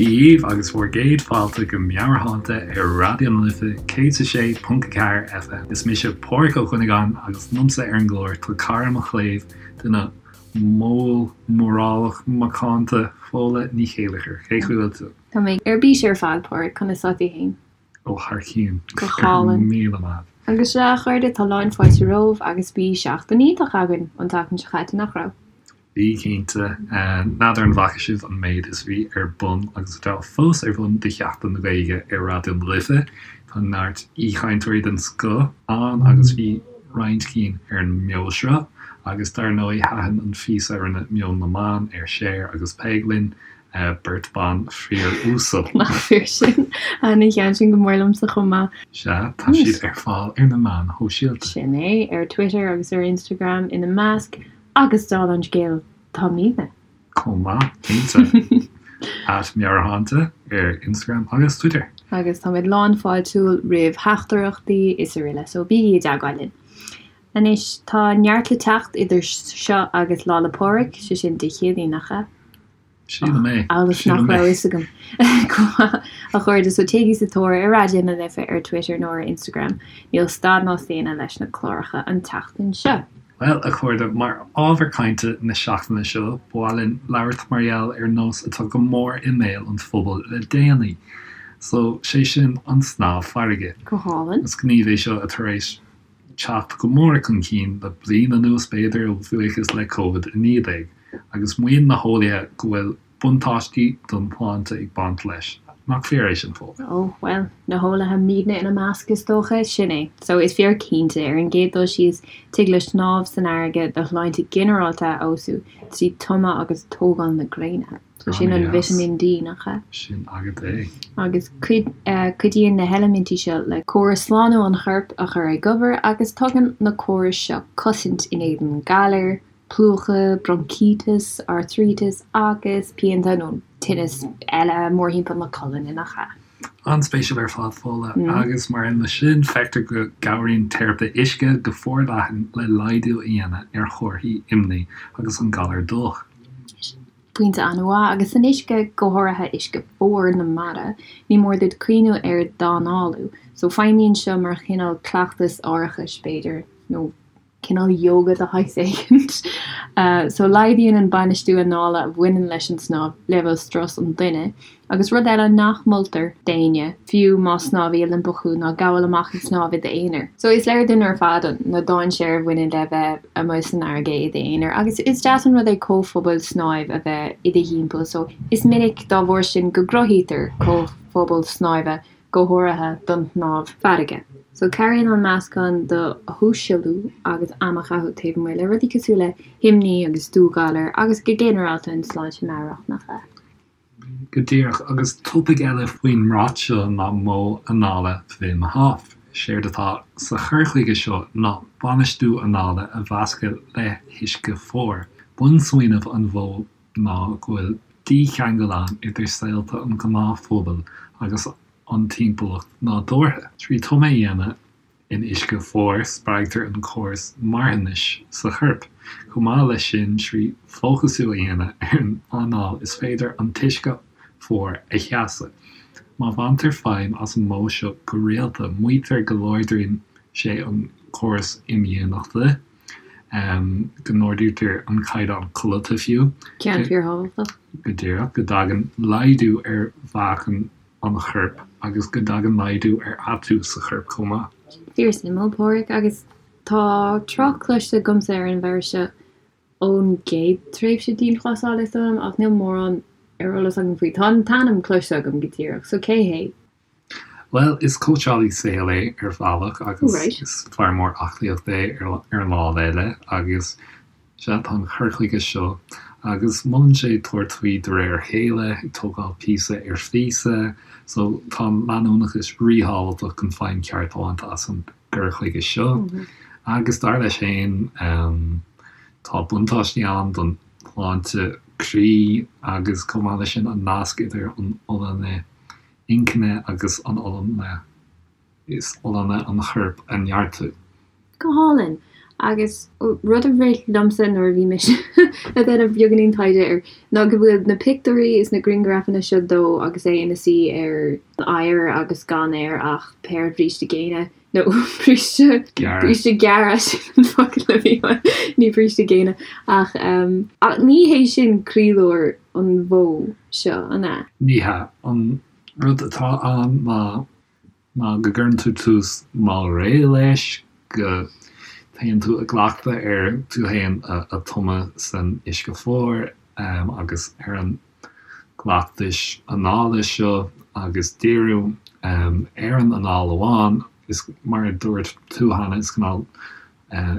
Dia dhaoibh agus bhur gcéad fáilte go Meabhairshláinte ar Raidió na Life 106.4 FM. Is mise Pádhraic Ó Cuinneagáin agus liomsa ar an gclár tá cara mo chléibh, duine mall mórálach macánta, Fódhla Ní Chéilleachair. Cén chaoi a bhfuil tú? Tá mé ar bís ar fad, Pádhraic, conas tá tú fhéin? Ó thar cionn. Go hálainn. 1000 maith. Agus sea, a chairde, tá lán fáilte romhaibh agus bhí seachtain iontach againn an tseachtain seo caite, nach raibh? Bhí, cinnte. N'fheadar an bhfaca sibh an méid is a bhí ar bun agus atá fós ar bun do Sheachtain na Gaeilge ar Raidió na Life. Tá neart aoichainteoirí den scoth ann agus bhí roinnt cinn ar an mbeoshruth. Agus dar ndóigh thaitin an phíosa a rinne Meon na mBan ar Cher agus Peig linn. Beirt ban fíor-uasal. Nach fíor sin? Thaitin an ceann sin go mór liomsa chomh maith. Sea, tá siad ar fáil ar na meáin shóisialta. Sin é, ar Twitter agus ar Instagram ina measc, agus dála an scéil, táimidne. Chomh maith, cinnte. At Meabhairshláinte ar Instagram agus Twitter. Agus táimid lán fáiltiúil roimh theachtaireachtaí is araile, so bígí i dteagmháil linn. Anois, tá neart le teacht idir seo agus Lá 'le Pádraig, sé sin Dé Céadaoin, nach ea? Sílim é. Amhail is nach raibh a fhios agam. Go maith, a chairde, so téigí sa tóir ar Raidió na Life ar Twitter nó ar Instagram. Níl stad ná staonadh leis na cláracha an tseachtain seo. Bhuel, a chairde, mar ábhar cainte na seachtaine seo, ba mhaith linn labhairt mar gheall ar nós atá go mór i mbéal an phobail le déanaí. So, sé sin, an snámh farraige. Go hálainn. Is gníomh é seo atá tar éis teacht go mór chun cinn le bliain anuas, b'fhéidir, a bhuíochas le Covid-19, agus maíonn na heolaithe go bhfuil buntáistí don tsláinte ag baint leis. Nach fíor é sin, Fódhla? Ó, bhuel, na heolaithe, muidne ina measc, is dócha. Sin é. So, is fíor cinnte, ar an gcéad dul síos, tig le snámh san fharraige do shláinte ginearálta a fheabhsú trí tumadh agus tógáil na gréine. So sin an Vitamin D, nach ea? Sin agat é. Agus cuidíonn na heilimintí seo le córas slánú an choirp a chur ag obair agus tugann na córais seo cosaint in éadan galair, plúchadh, broncíteas, artairíteas agus pianta nó tinneas eile mórthimpeall na colainne, nach ea? An-spéisiúil ar fad, Fódhla. Agus mar aon leis sin, feictear go gcabhraíonn teiripe uisce go forleathan le laghdú a dhéanamh ar chomharthaí imní agus an galar dubhach. Pointe an-mhaith, agus san uisce, go háirithe uisce fuar na mara, ní mór duit cuimhniú ar d'análú. So feidhmíonn seo mar chineál cleachtas aireachais, b'fhéidir, nó cineál yoga de shaghas éigint. So laghdaíonn an bainistiú anála a bhaineann leis an snámh leibhéal strus an duine. Agus rud eile nach moltar d'éinne, fiú más snámhaí Oilimpeach thú, ná gabháil amach ag snámh i d'aonar. So is léir dúinn ar fad na dainséir a bhaineann le bheith amuigh san fharraige i d'aonar agus is deas an rud é comhphobal snáimh a bheith i do thimpeall. So is minic dá bharr sin go gcruthaítear comhphobal snáimhe go háirithe don shnámh farraige. So cabhraíonn an meascán de shóisialú agus am a chaitheamh taobh amuigh le rudaí cosúil le himní agus dúghalar agus go ginearálta an tsláinte meabhrach, nach ea? Go díreach, agus topaic eile faoin mbrat seo ná modh anála Wim Hof. Séard atá sa chur chuige seo ná bainistiú anála a mheascadh le huisce fuar. Bunsmaoineamh an mhodh ná go bhfuil dícheangal ann idir saolta an ghnáthphobail agus an timpeallacht nádúrtha. Trí tumadh a dhéanamh In uisce fuar, spreagtar an córas marthanais sa chorp. Chomh maith leis sin, trí fócasú a dhéanamh ar an anáil is féidir an t-uisce fuar a sheasamh. Má bhaintear feidhm as an modh seo go rialta, maítear go láidríonn sé an córas imdhíonachta, go n-ardaítear an caighdeán codlata fiú. Ceann fíorthábhachtach. Go díreach, go dtagann laghdú ar mheáchan an choirp agus go dtagann laghdú ar atú sa chorp chomh maith. Fíorsuimiúil, Páraic, agus tá trácht cloiste agamsa ar an bhfear seo ón gcéad tréimhse dianghlasála is dóigh liom, ach níl mórán ar eolas agam faoi. Tá an t-ainm cloiste agam go díreach, so cé hé? Bhuel, is cóitseálaí saoil é ar bhealach agus is fear mór aclaíochta é ar an lámh eile agus Sea, tá an cur chuige seo, agus molann sé tabhairt faoi de réir a chéile, ag tógáil píosa ar phíosa, so tá an leanúnachas ríthábhachtach chun feidhm cheart a bhaint as an gcur chuige seo. Agus dar leis féin, tá buntáistí ann don shláinte croí agus chomh maith leis sin an nasc idir an fholláine inchinne agus an fholláine. is folláine an choirp a neartú. Go hálainn! Agus rud a rith liomsa nuair a bhí mise ag déanamh beagáinín taighde air ná go bhfuil na pictiúirí is na grianghrafanna seo dó agus é ina suí ar an oighear agus gan air ach péire bríste géine nó bríste Gearra. bríste gearra sin an focal a bhí ann, ní bríste géine ach ach ní hé sin croílár an mhodh seo, an ea? Ní hea. An rud atá ann ná ná go gcuireann tú tús mall réidh leis, go dtéann tú i gcleachtadh ar tú féin a tumadh san uisce fuar agus ar an gcleachtais anála seo agus díriú ar an anáil amháin. Is mar a dúirt tú cheana, is cineál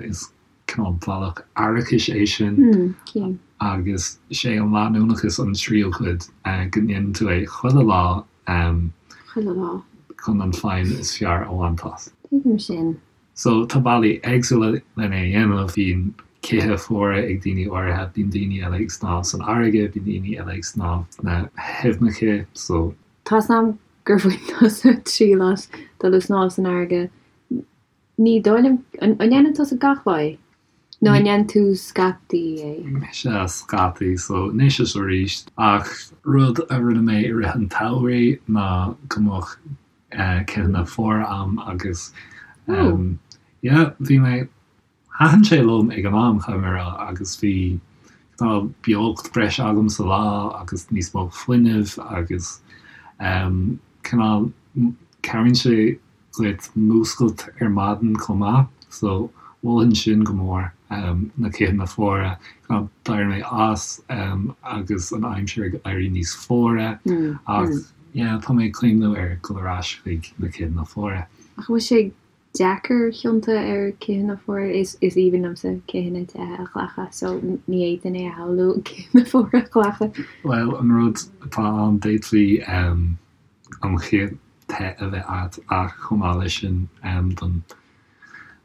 is cineál bealach aireachais é sin agus sé an leanúnachas an tríú cuid, go ndéanann tú é chuile lá. Chuile lá. Chun an feidhm is fearr a bhaint as. Tuigim sin. So, tá bealaí éagsúla lena dhéanamh. Bíonn cithí fuara ag daoine áirithe, bíonn daoine eile ag snámh san fharraige, bíonn daoine eile ag snámh sna haibhneacha. So. Tá's a'm gur bhain tusa triail as dul ag snámh san fharraige. Ní dóigh liom, an ndéanann tusa gach lá é? Nó an ndéanann tú scaití é? Mise scaití, so anois is arís. Ach rud a rinne mé i rith an tsamhraidh ná go mbeadh citheanna fuara a'm agus yeah, bhí mé, thaitin sé liom ag an am, caithfidh mé a rá, agus bhí cineál beocht breise agam sa lá agus níos mó fuinnimh agus cineál cabhraíonn sé duit múscailt ar maidin chomh maith so mholfainn sin go mór, na citheanna fuara. D'éirigh mé as agus an aimsir ag éirí níos fuaire ach yeah tá mé ag cuimhniú ar dhul ar ais chuig na citheanna fuara. Ach an bhfuil sé deacair tiontú ar citheanna fuara? Is aoibhinn liomsa citheanna te a ghlacadh so ní fhéadfainn é a shamhlú citheanna fuara a ghlacadh. Bhuel an rud atá ann d'fhéadfaí an chith te a bheith agat ach chomh maith leis sin don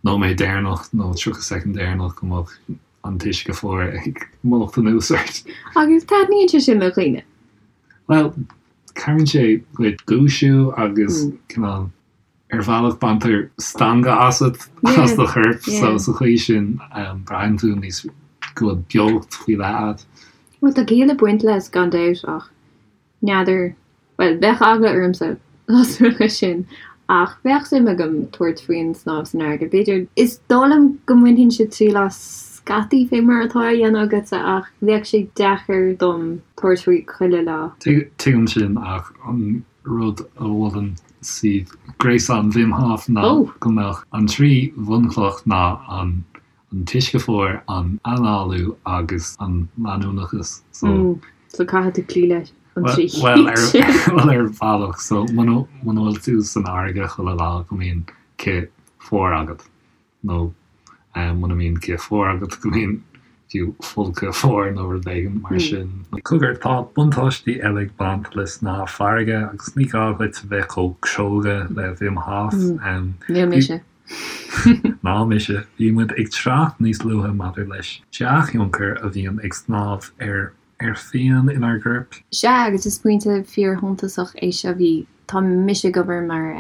nóiméad deireanach nó 30 soicind deireanach go mbeadh an t-uisce fuar ag mullacht anuas ort. Agus taitníonn sé sin le dhaoine? Bhuel, cabhraíonn sé duit dúisiú agus cineál, ar bhealach baintear stangadh asat, as do chorp, so sa chaoi sin braitheann tú níos, go bhfuil beocht faoi leith agat. Bhuel, tá ciall ag baint leis gan dabht ach N'fheadar, bhuel, bheadh eagla ormsa dá dtarlódh sin, ach bheadh suim agam tabhairt faoin snámh san fharraige, b'fhéidir. Is dóigh liom go mbainfinnse triail as scaití, fé mar atá á dhéanamh agatsa, ach bheadh sé deacair dom tabhairt faoi chuile lá. Tuigim sin, ach an rud a mholann suíomh gréasáin Wim Hof ná go mbeadh an trí bhunchloch ná an an t-uisce fuar, an análú agus an leanúnachas. So. So caithfidh tú cloí leis an trí cinn sin. Bhuel ar bhealach. So muna bhfuil tú san fharraige chuile lá go mbíonn cith fuar agat nó muna mbíonn cith fuar agat go mbíonn fiú folcadh fuar nó rud éigin mar sin. Cogar, tá buntáistí eile ag baint le snámh farraige agus ní gá duit a bheith chomh cróga le Wim Hof. Níl mise. Ná mise. Bhí muid ag trácht níos luaithe maidir leis dea-thionchar a bhíonn ag snámh ar ar phian inár gcoirp. Sea, agus is pointe fíorshuntasach é seo. Bhí, tá mise ag obair mar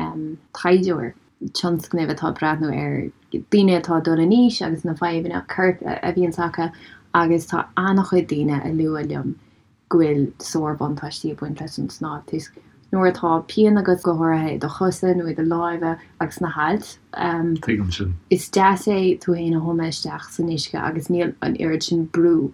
taighdeoir tionscnaimh atá ag breathnú ar daoine atá ag dul in aois agus na fadhbanna coirp a bhíonns acu agus tá an-chuid daoine a lua liom go bhfuil sárbhuntáistí ag baint leis an snámh toisc nuair atá pian agat go háirithe i do chosa nó i do lámha agus sna hailt. Tuigim sin. Is deas é tú féin a thumadh isteach san uisce agus níl an oiread sin brú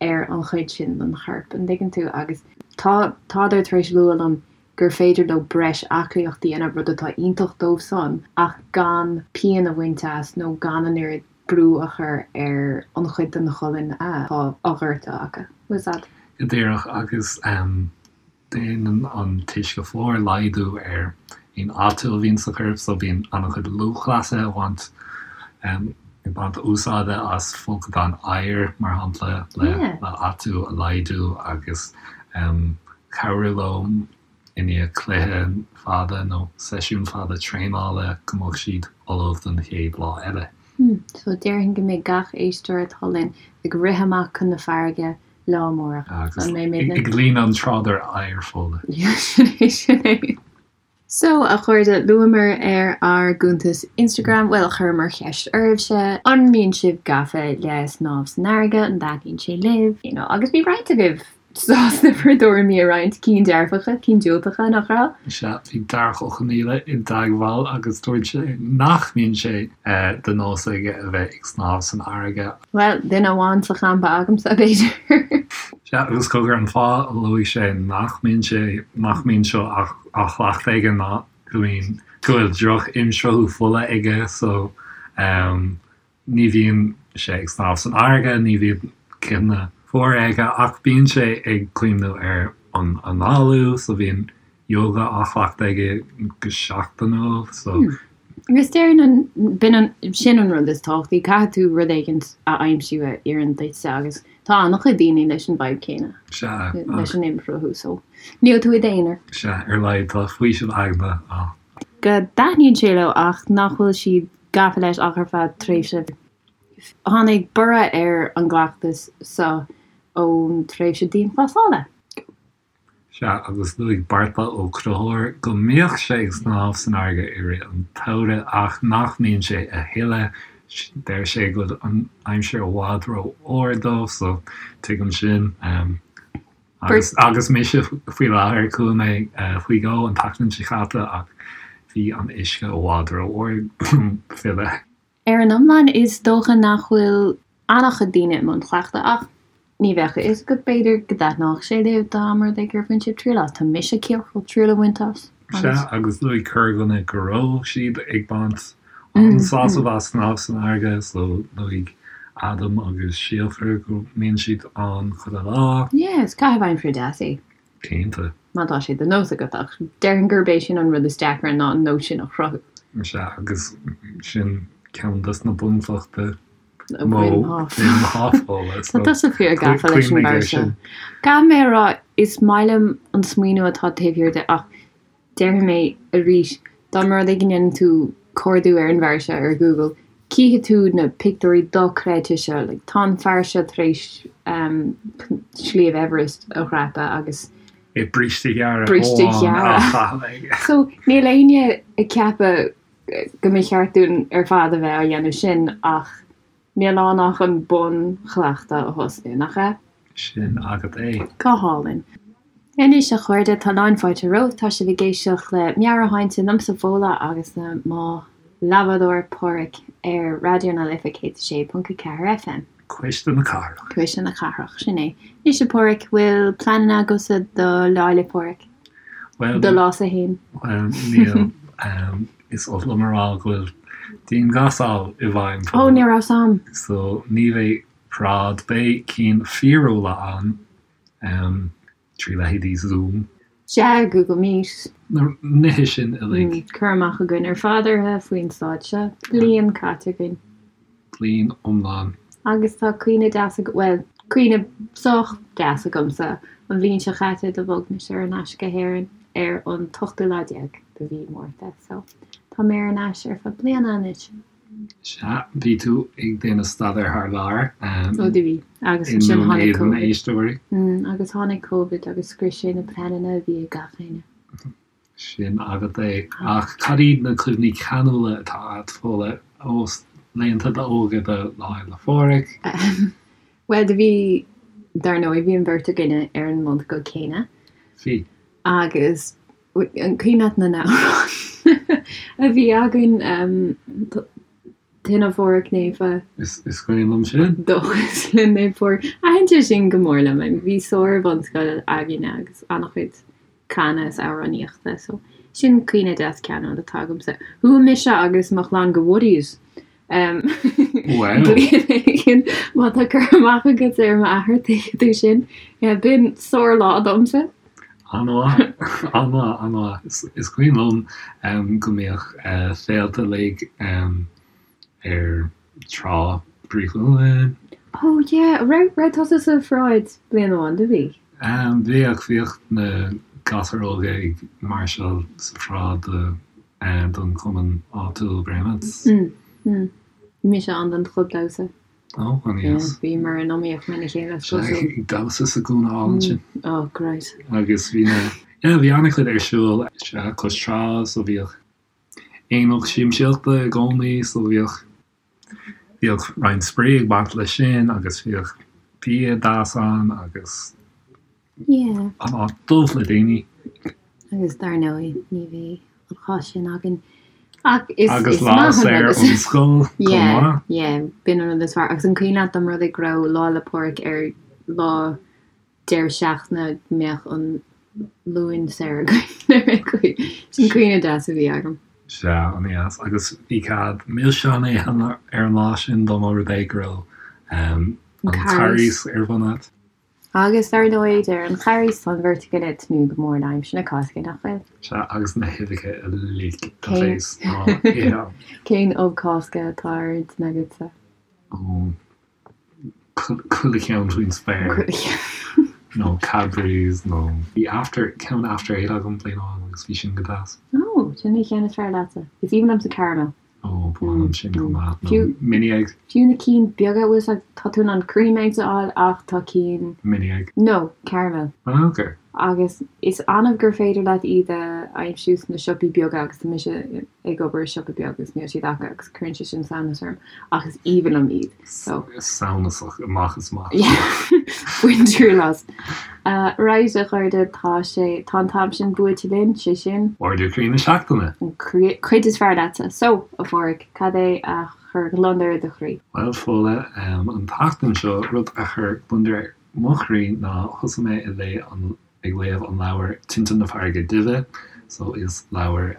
ar an chuid sin den chorp, an dtuigeann tú? Agus tá, tádar tar éis lua liom gur féidir leo breis aclaíocht a dhéanamh, rud atá iontach dóibh san, ach gan pian a bhaint as nó gan an oiread brú a chur ar an chuid den cholainn atá á ghortú acu. Bhfuil a fhios a'd? Go díreach, agus déanann an t-uisce fuar laghdú ar aon atú a bhíonn sa chorp, so bíonn an-chuid lúthchleasaithe ag baint ag baint úsáide as folcadáin oighir, mar shampla, le atú a laghdú agus cabhrú leo i ndiaidh cluiche fada nó seisiún fada traenála go mbeadh siad ullamh don chéad lá eile. So déarfainn go mbeidh gach éisteoir atá linn ag rith amach chun na farraige lá amárach. Agus ag líonadh an trádáir oighir fola. Sin é, sin é. So, a chairde, luamar ar ár gcuntas Instagram, bhuel, chuireamar ceist oraibhse, an mbíonn sibh gafa le snámh san fharraige, an dtaitníonn sé libh, you know, agus bhí roinnt agaibh sásta bhur dtuairimí a roinnt, cinn dearfacha, cinn diúltacha, nach raibh? Sea, bhí Darach Ó Conaola i dteagmháil agus dúirt sé nach mbíonn sé de nós aige a bheith ag snámh san fharraige. Bhuel, duine amháin sa champa agamsa, b'fhéidir. Sea, agus cogar, an fáth a luaigh sé nach mbíonn sé, nach mbíonn seo á chleachtadh aige ná go mbíonn, go bhfuil droch-imshruthú fola aige so ní bhíonn sé ag snámh san fharraige, ní bhíonn cithne fuara aige ach bíonn sé ag cuimhniú ar an análú so bíonn yoga á chleachtadh aige go seachtainiúil so. Agus déarfainn an, b'in an, sin an rud is tábhachtaí, caithfidh tú rud éigint a aimsiú a oireann duitse agus tá an-chuid daoine leis an bhfadhb céanna, Sea, leis an imshruthú so níl tú i d'aonar. Sea, ar a laghad tá faoiseamh aigne ann. Go dtaitníonn sé leo ach nach bhfuil siad gafa leis ach ar feadh tréimhse. Tháinig borradh ar an gcleachtas seo ón tréimhse dianghlasála. Sea, agus luaigh Beartla Ó Conchúir go mbíodh sé ag snámh san fharraige i rith an tsamhraidh ach nach mbíonn sé a thuilleadh. Deir sé go bhfuil an aimsir i bhfad rófhuar dó, so tuigim sin. Agus, agus mise faoi láthair, chuaigh mé faoi dhó an tseachtain seo caite ach bhí an uisce i bhfad rófhuar dom filleadh. Ar an iomlán, is dócha nach bhfuil an-chuid daoine i mbun cleachtaidh, ach ní bheadh a fhios agat, b'fhéidir go dtaitneodh sé libh dá mba rud é gur bhain sibh triail as. Tá mise ciach triail a bhaint as. Sea, agus luaigh corrdhuine go raibh siad ag baint an-sásamh as snámh san fharraige, so luaigh Adam agus Síofra go mbíonn siad ann chuile lá. Yeah, is caitheamh aimsire deas é. Cinnte. Má tá sé de nós agat, ach déarfainn gurb é sin an rud is deacra ná an nós sin a chruthú. Sea, agus sin ceann des na bunchlocha de mhodh Wim Hof. Tá tusa fíor gafa leis an bhfear seo. Caithfidh mé a rá, is maith liom an smaoineamh atá taobh thiar de ach Déarfaidh mé arís, dá mba rud é go ndéanann tú cuardú ar an bhfear seo ar Google, cífidh tú na pictiúirí dochreidte seo. Like, tá an fear seo tar éis Sliabh Everest a dhreapadh agus. É bríste gearra Bríste amháin á gearra. chaitheamh aige. So, níl éinne ag ceapadh go mba cheart dúinn ar fad a bheith á dhéanamh sin ach Níl ann ach an bunchleachtadh a thosnú, nach ea? Sin agat é. Go hálainn. Anois, a chairde, tá lán fáilte romhaibh. Tá sibh ag éisteacht le Meabhairshláinte liomsa, Fódhla, agus le mo leathbhádóir, Páraic, ar Raidió na Life 106.4 FM. Cuisle na Cathrach. Cuisle na Cathrach, sin é. Anois, a Pháraic, bhfuil pleananna agatsa do Lá 'le Pádraig? Bhuel, Do lá-sa fhéin? Bhuel, níl. Is oth liom a rá go bhfuil dianghlasáil i bhfeidhm Ó, ní raibh 's a'm. So ní bheidh paráid, beidh cinn fíorúla ann trí leithéidí Zoom. Sea, Google Meet. Na nithe sin uilig. Cur amach againn ar fad orthu faoin staid seo. Bliain caite againn. Bliain iomlán. Agus tá cuimhne deas agam, bhuel, cuimhne sách deas agamsa, an bhliain seo chaite do bhog mise ar ais go hÉirinn ar an t-ochtú lá déag de mhí Márta, so tá mé ar ais ar feadh bliana anois. Sea, bhí tú ag déanamh staidéir thar lear. Ó do bhí, agus ansin tháinig Covid. Éisteoirí. Agus tháinig Covid agus scrios sé na pleananna a bhí ag gach éinne. Sin agat é. Ach cad iad na cuimhní ceanúla atá agat, Fódhla, ó laethanta d'óige do Lá Fhéile Phádraig? Bhuel, do bhí, dar ndóigh, bhí an bheirt againne ar an mbunscoil céanna. Bhí. Agus an cuimhin leat na n-amhráin a bhí againn, Tine Phádraig Naofa. Is cuimhin liom sin. Dóchas le Naomh Pádraig. Thaitin sé sin go mór liom. Bhí sár-bhunscoil againne agus an-chuid canadh is amhránaíochta so sin cuimhne deas ceanúil atá agamsa. Chuaigh mise agus mo chlann go Woody's Wow. bliain éigin má tá cur amach agat ar m'athair tuigfidh tú sin. Yeah, b'in sár-lá domsa. An-mhaith, an-mhaith, an-mhaith. Is cuimhin liom go mbíodh féilte uilig ar Trá Bhrí Chualann. Oh yeah, raibh, raibh tusa sa pharáid bliain amháin, do bhí? Bhíodh, bhíodh na gasúir óga ag máirseáil sa pharáid do, don chumann áitiúil Bréanainn. Mm, mm. Bhí mise ann don chlub damhsa. Ó, an Yeah, deas. bhíomar in iomaíocht lena chéile, is cosúil. Ag damhsa sa gcúinne álainn sin. Oh, great. Agus bhí na. Yeah, bhí an-chuid ar siúl, sea, cois trá, so bhíodh aonach siamsaíochta i gcónaí, so bhíodh, bhíodh roinnt spraoi ag baint leis sin agus bhíodh bia deas ann agus Yeah. an áit dubh le daoine. Agus dar ndóigh, ní bheidh an chás sin againn. Ach is, Agus is lá maith an saor rud is. ón scoil chomh Yeah, maith. yeah, b'in an rud is fearr. Agus an cuimhin leat dá mba rud é go raibh Lá 'le Pádraig ar lá deireadh seachtaine go mbeadh an Luan saor againn. Sin cuimhne deas a bhí agam. Sea, an-deas. Agus bhí cead milseáin a ithe ar an lá sin dá mba rud é go raibh an Carghas ar bun agat. Agus dar ndóigh, deir an Charghas, tá an bheirt againn ag tnúth go mór le aimsir na Cásca, nach bhfuil? Sea, agus na huibheacha uilig a bheas á n-ithe. Cén ubh Cásca atá ar intinn agatsa? Ó, Chuile cheann faoin spéir. Nó Cadbury's nó bhí after, ceann After Eight agam bliain amháin agus bhí sin go deas. Ó, sin an cheann is fearr leatsa. Is aoibhinn liomsa caramel. Ó, ba mhaith liom sin chomh maith. Nó mini egg. Fiú na cinn beaga, bhfuil 'fhios a'd, tá tú in ann cream eggs a fháil ach tá cinn. Mini egg. No, caramel. Ah, ok. Agus is annamh gur féidir leat iad a aimsiú sna siopaí beaga agus tá mise ag obair i siopa beag agus níl siad acu agus cuireann sé sin samhnas orm ach is aoibhinn liom iad so. Samhnasach amach is amach. Bain triail as. Right a chairde tá sé, tá an t-am sin buailte linn, sé sin. Ardú Croí na Seachtaine! An cuid is fearr leatsa. So, a Phádraig, cad é a chuir gliondar ar do chroí? Bhuel, Fódhla, an tseachtain seo, rud a chuir gliondar ar mo chroí ná thosaigh mé ag léamh an ag léamh an leabhar Tinte na Farraige Duibhe so is leabhar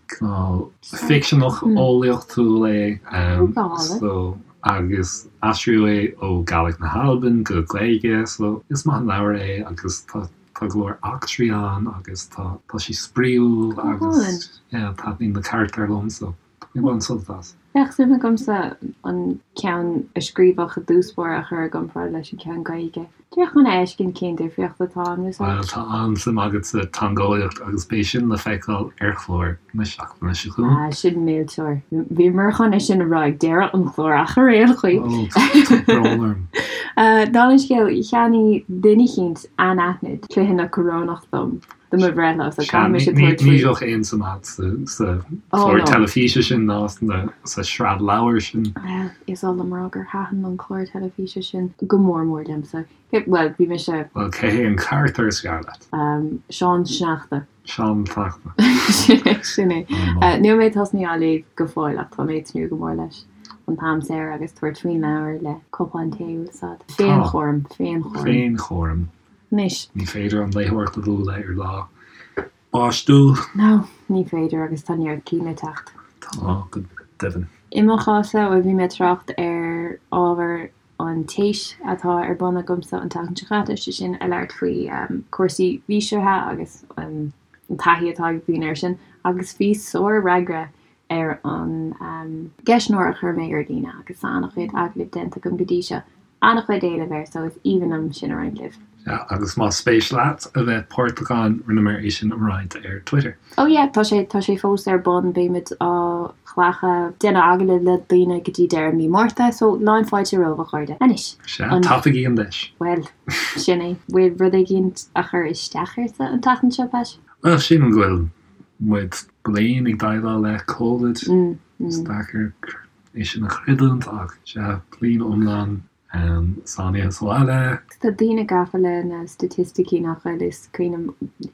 cineál ficseanach eolaíochtúil é so agus aistríodh é ó Gàidhlig na hAlban go Gaeilge so is maith an leabhar é agus tá tá go leor eachtraí ann agus tá tá sé spraíúil agus yeah taitníonn na carachtair liom so Ní bhain sult as. Bheadh suim agamsa an ceann a scríobhadh i dtús báire a chur i gcomparáid leis an ceann Gaeilge. Díreach chun a fheiscint cén difríocht atá ann, is Bhuel, tá an-suim agat sa teangeolaíocht agus beidh sin le feiceáil ar chlár na seachtaine seo chugainn. Ah, sin millteoir. Bhíomar chun é sin a rá ag deireadh an chláir ach ar aon chaoi. Ó, tá brón orm. Dála an scéil, cheannaigh duine eicínt anaithnid cluiche na corónach dom. Do mo bhreithlá, so caithfidh mise tabhairt faoi. Ní bheadh aon suim agat sa chlár teilifíse sin ná sa sraith leabhar sin. Bhuel, is oth liom a rá gur thaitin an clár teilifíse sin go mór mór liomsa. Bhuel, bhí mise. Bhuel, cé hé an carachtar is fearr leat? Seán Sneachta. Seán Sneachta. Sin é, sin é. Níl mé tosnaithe á léamh go fóill ach tá mé ag tnúth go mór leis. An t-am saor agus tabhairt faoin leabhar le cupán tae, bhfuil 'fhios a'd. Féinchúram, féinchúram. Féinchúram. Anois. Ní féidir an léitheoireacht a bhualadh ar lá báistiúil. No, ní féidir agus tá neart cinn le teacht. Tá, go deimhin. I mo chás-sa, bhuel, bhí mé ag trácht ar ábhar an téis atá ar bun agamsa an tseachtain seo caite, sé sin ag labhairt faoi cúrsaí bhíseartha agus an taithí atá ag daoine air sin, agus bhí sár-fhreagra ar an gceistneoir a chuir mé ar líne agus tá an-chuid agallamh déanta agam go dtí seo. An-chuid éilimh air so is aoibhinn liom sin a roinnt libh. Sea, agus más spéis leat a bheith páirteach ann, rinneamar é sin a roinnt ar Twitter. Oh yeah, tá sé, tá sé fós ar bun, beimid á ghlacadh, déanamh agallamh le daoine go dtí deireadh mí Márta, so lán fáilte romhaibh a chairde. Anois, Sea, an. tapaigí an deis. Bhuel, sin é. Bhfuil rud éigin a chuir isteach ortsa an tseachtain seo, Pat? Bhuel, sílim go bhfuil muid bliain ag déileáil le Covid. Is deacair é sin a chreidiúint ach sea, bliain iomlán sáinnithe sa bhaile. Tá daoine gafa le na staitisticí nach bhfuil? Is cuimhin liom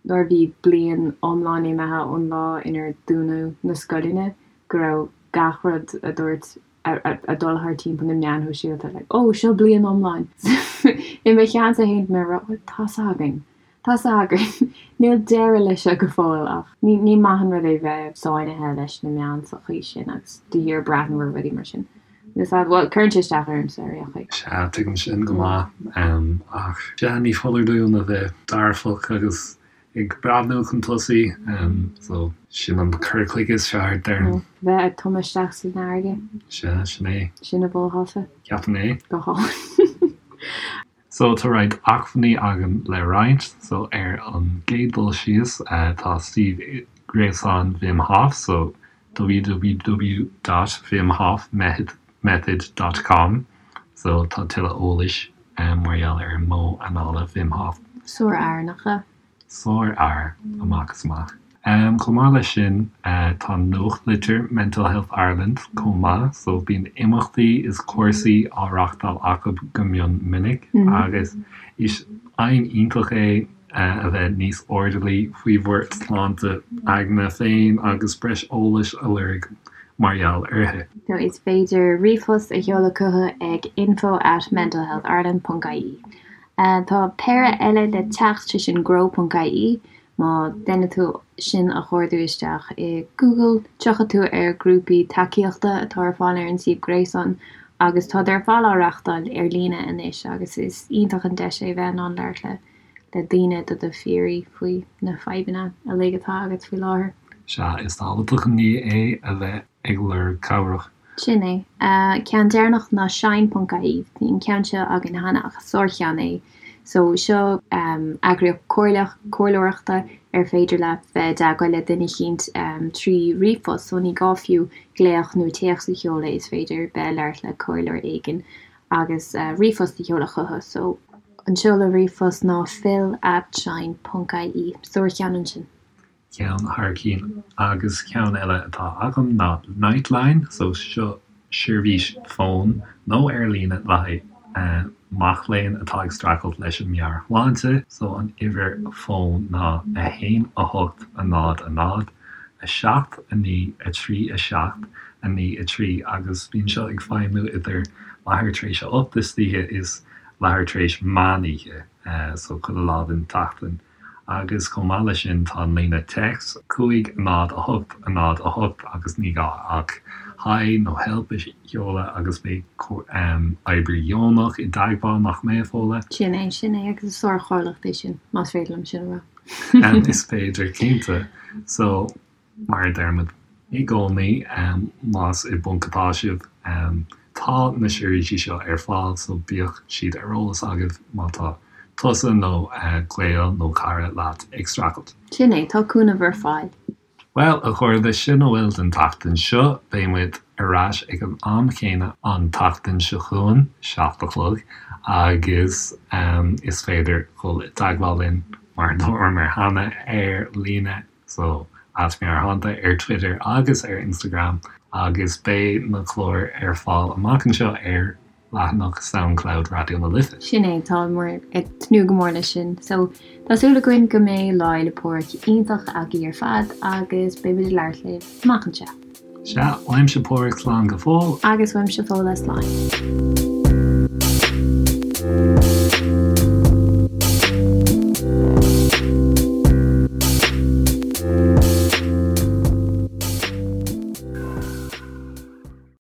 nuair a bhí bliain iomlán imithe ón lá inar dúnadh na scoileanna go raibh gach rud a dúirt ag dul thar timpeall na meáin shóisialta like oh seo bliain iomlán. I mo cheannsa féin mé ag rá bhuel tá's againn, tá's againn, níl deireadh leis seo go fóill ach ní ní maith an rud é bheith sáinnithe leis na meáin sa chaoi sin agus de shíor breathnú ar rudaí mar sin. Is ea, bhuel cuireann sé isteach ormsa ar aon chaoi. Sea, tuigim sin go maith ach sea ní foláir dúinn a bheith dearfach agus ag breathnú chun tosaigh so sin an cur chuige is fearr, déarfainn. Bheith ag tumadh isteach san fharraige. Sea, sin é. Sin a mholfása. Ceapaim é. Go hálainn. So tá roinnt acmhainní againn le roinnt. So ar an gcéad dul síos tá suíomh gréasáin Wim Hof, so www dot wimhofmethod method dot com so tá tuilleadh eolais mar gheall ar an modh anála Wim Hof. Sár-fhear, nach ea? Sárfhear amach is amach. Chomh maith leis sin, tá nuachtlitir Mental Health Ireland chomh maith, so bíonn imeachtaí is cúrsaí á reachtáil acu go mion minic agus is aidhm iontach é a bheith níos airdeallaí faoi bhur sláinte aigne féin agus breis eolais a lorg mar gheall uirthi. So is féidir ríomhphost a sheoladh chucu ag info at mentalhealthireland ponc ie. Tá péire eile le teacht, sé sin grow ponc ie, má deineann tú sin a chuardú isteach i Google, tiocfaidh tú ar grúpaí tacaíochta atá ar fáil ar an suíomh gréasáin agus táid ar fad á reachtáil ar líne anois agus is iontach an deis é bheith in ann labhairt le le daoine do do phiaraí faoi na fadhbanna uilig atá agat faoi láthair. Sea, is tábhachtach an ní é a bheith ag lorg cabhrach. Sin é. Ceann deireanach ná Shine ponc ie. Bhí an ceann seo againn cheana ach is sárcheann é. So seo eagraíocht comhairleach, comhairleoireachta ar féidir leat bheith i dteagmháil le duine eicínt trí ríomhphost. So ní gá fiú glaoch nó téacs a sheoladh, is féidir bheith ag labhairt le comhairleoir éigin agus ríomhphost a sheoladh chucu. So an seoladh ríomhphost ná phil at shine ponc ie. Sárcheann ansin. Ceann thar cinn. Agus ceann eile atá agam ná Nightline, so seo seirbhís fóin nó ar líne le haghaidh mac léinn atá ag streachailt leis an meabhairshláinte, so an uimhir fóin ná 1 8 0 0 7 9 3 7 9 3 agus bíonn seo ag feidhmiú idir leathuair tar éis a 8 istoíche is leathuair tar éis meán oíche, so chuile lá den tseachtain. Agus chomh maith leis sin tá an líne téacs 5 0 8 0 8 agus ní gá ach Hi nó Help a sheoladh agus beidh oibrí deonach i dteagmháil, nach mbeidh, a Fódhla? Sin é, sin é agus is sárchomhlacht é sin, más féidir liom sin a rá. Is féidir, cinnte. So. Mar a deirimid i gcónaí, más i bponc atá sibh, tá na seirbhísí seo ar fáil so bíodh siad ar eolas agaibh má tá tusa nó gaol nó cara leat ag streachailt. Sin é, tá cúnamh ar fáil. Bhuel, a chairde, sin a bhfuil don tseachtain seo. Beidh muid ar ais ag an am chéanna an tseachtain seo chugainn, 7 a chlog, agus is féidir dhul i dteagmháil linn, mar a dúramar cheana, ar líne. So, at Meabhairshláinte ar Twitter agus ar Instagram agus beidh na cláir ar fáil amach anseo ar leathanach Soundcloud Raidió na Life. Sin é, táimid ag tnúth go mór leis sin. So, tá súil againn go mbeidh Lá Fhéile Pádraig iontach agaibh ar fad agus beidh muid ag labhairt libh amach anseo. Sea, uaimse Pádraig slán go fóill. Agus uaimse Fódhla slán.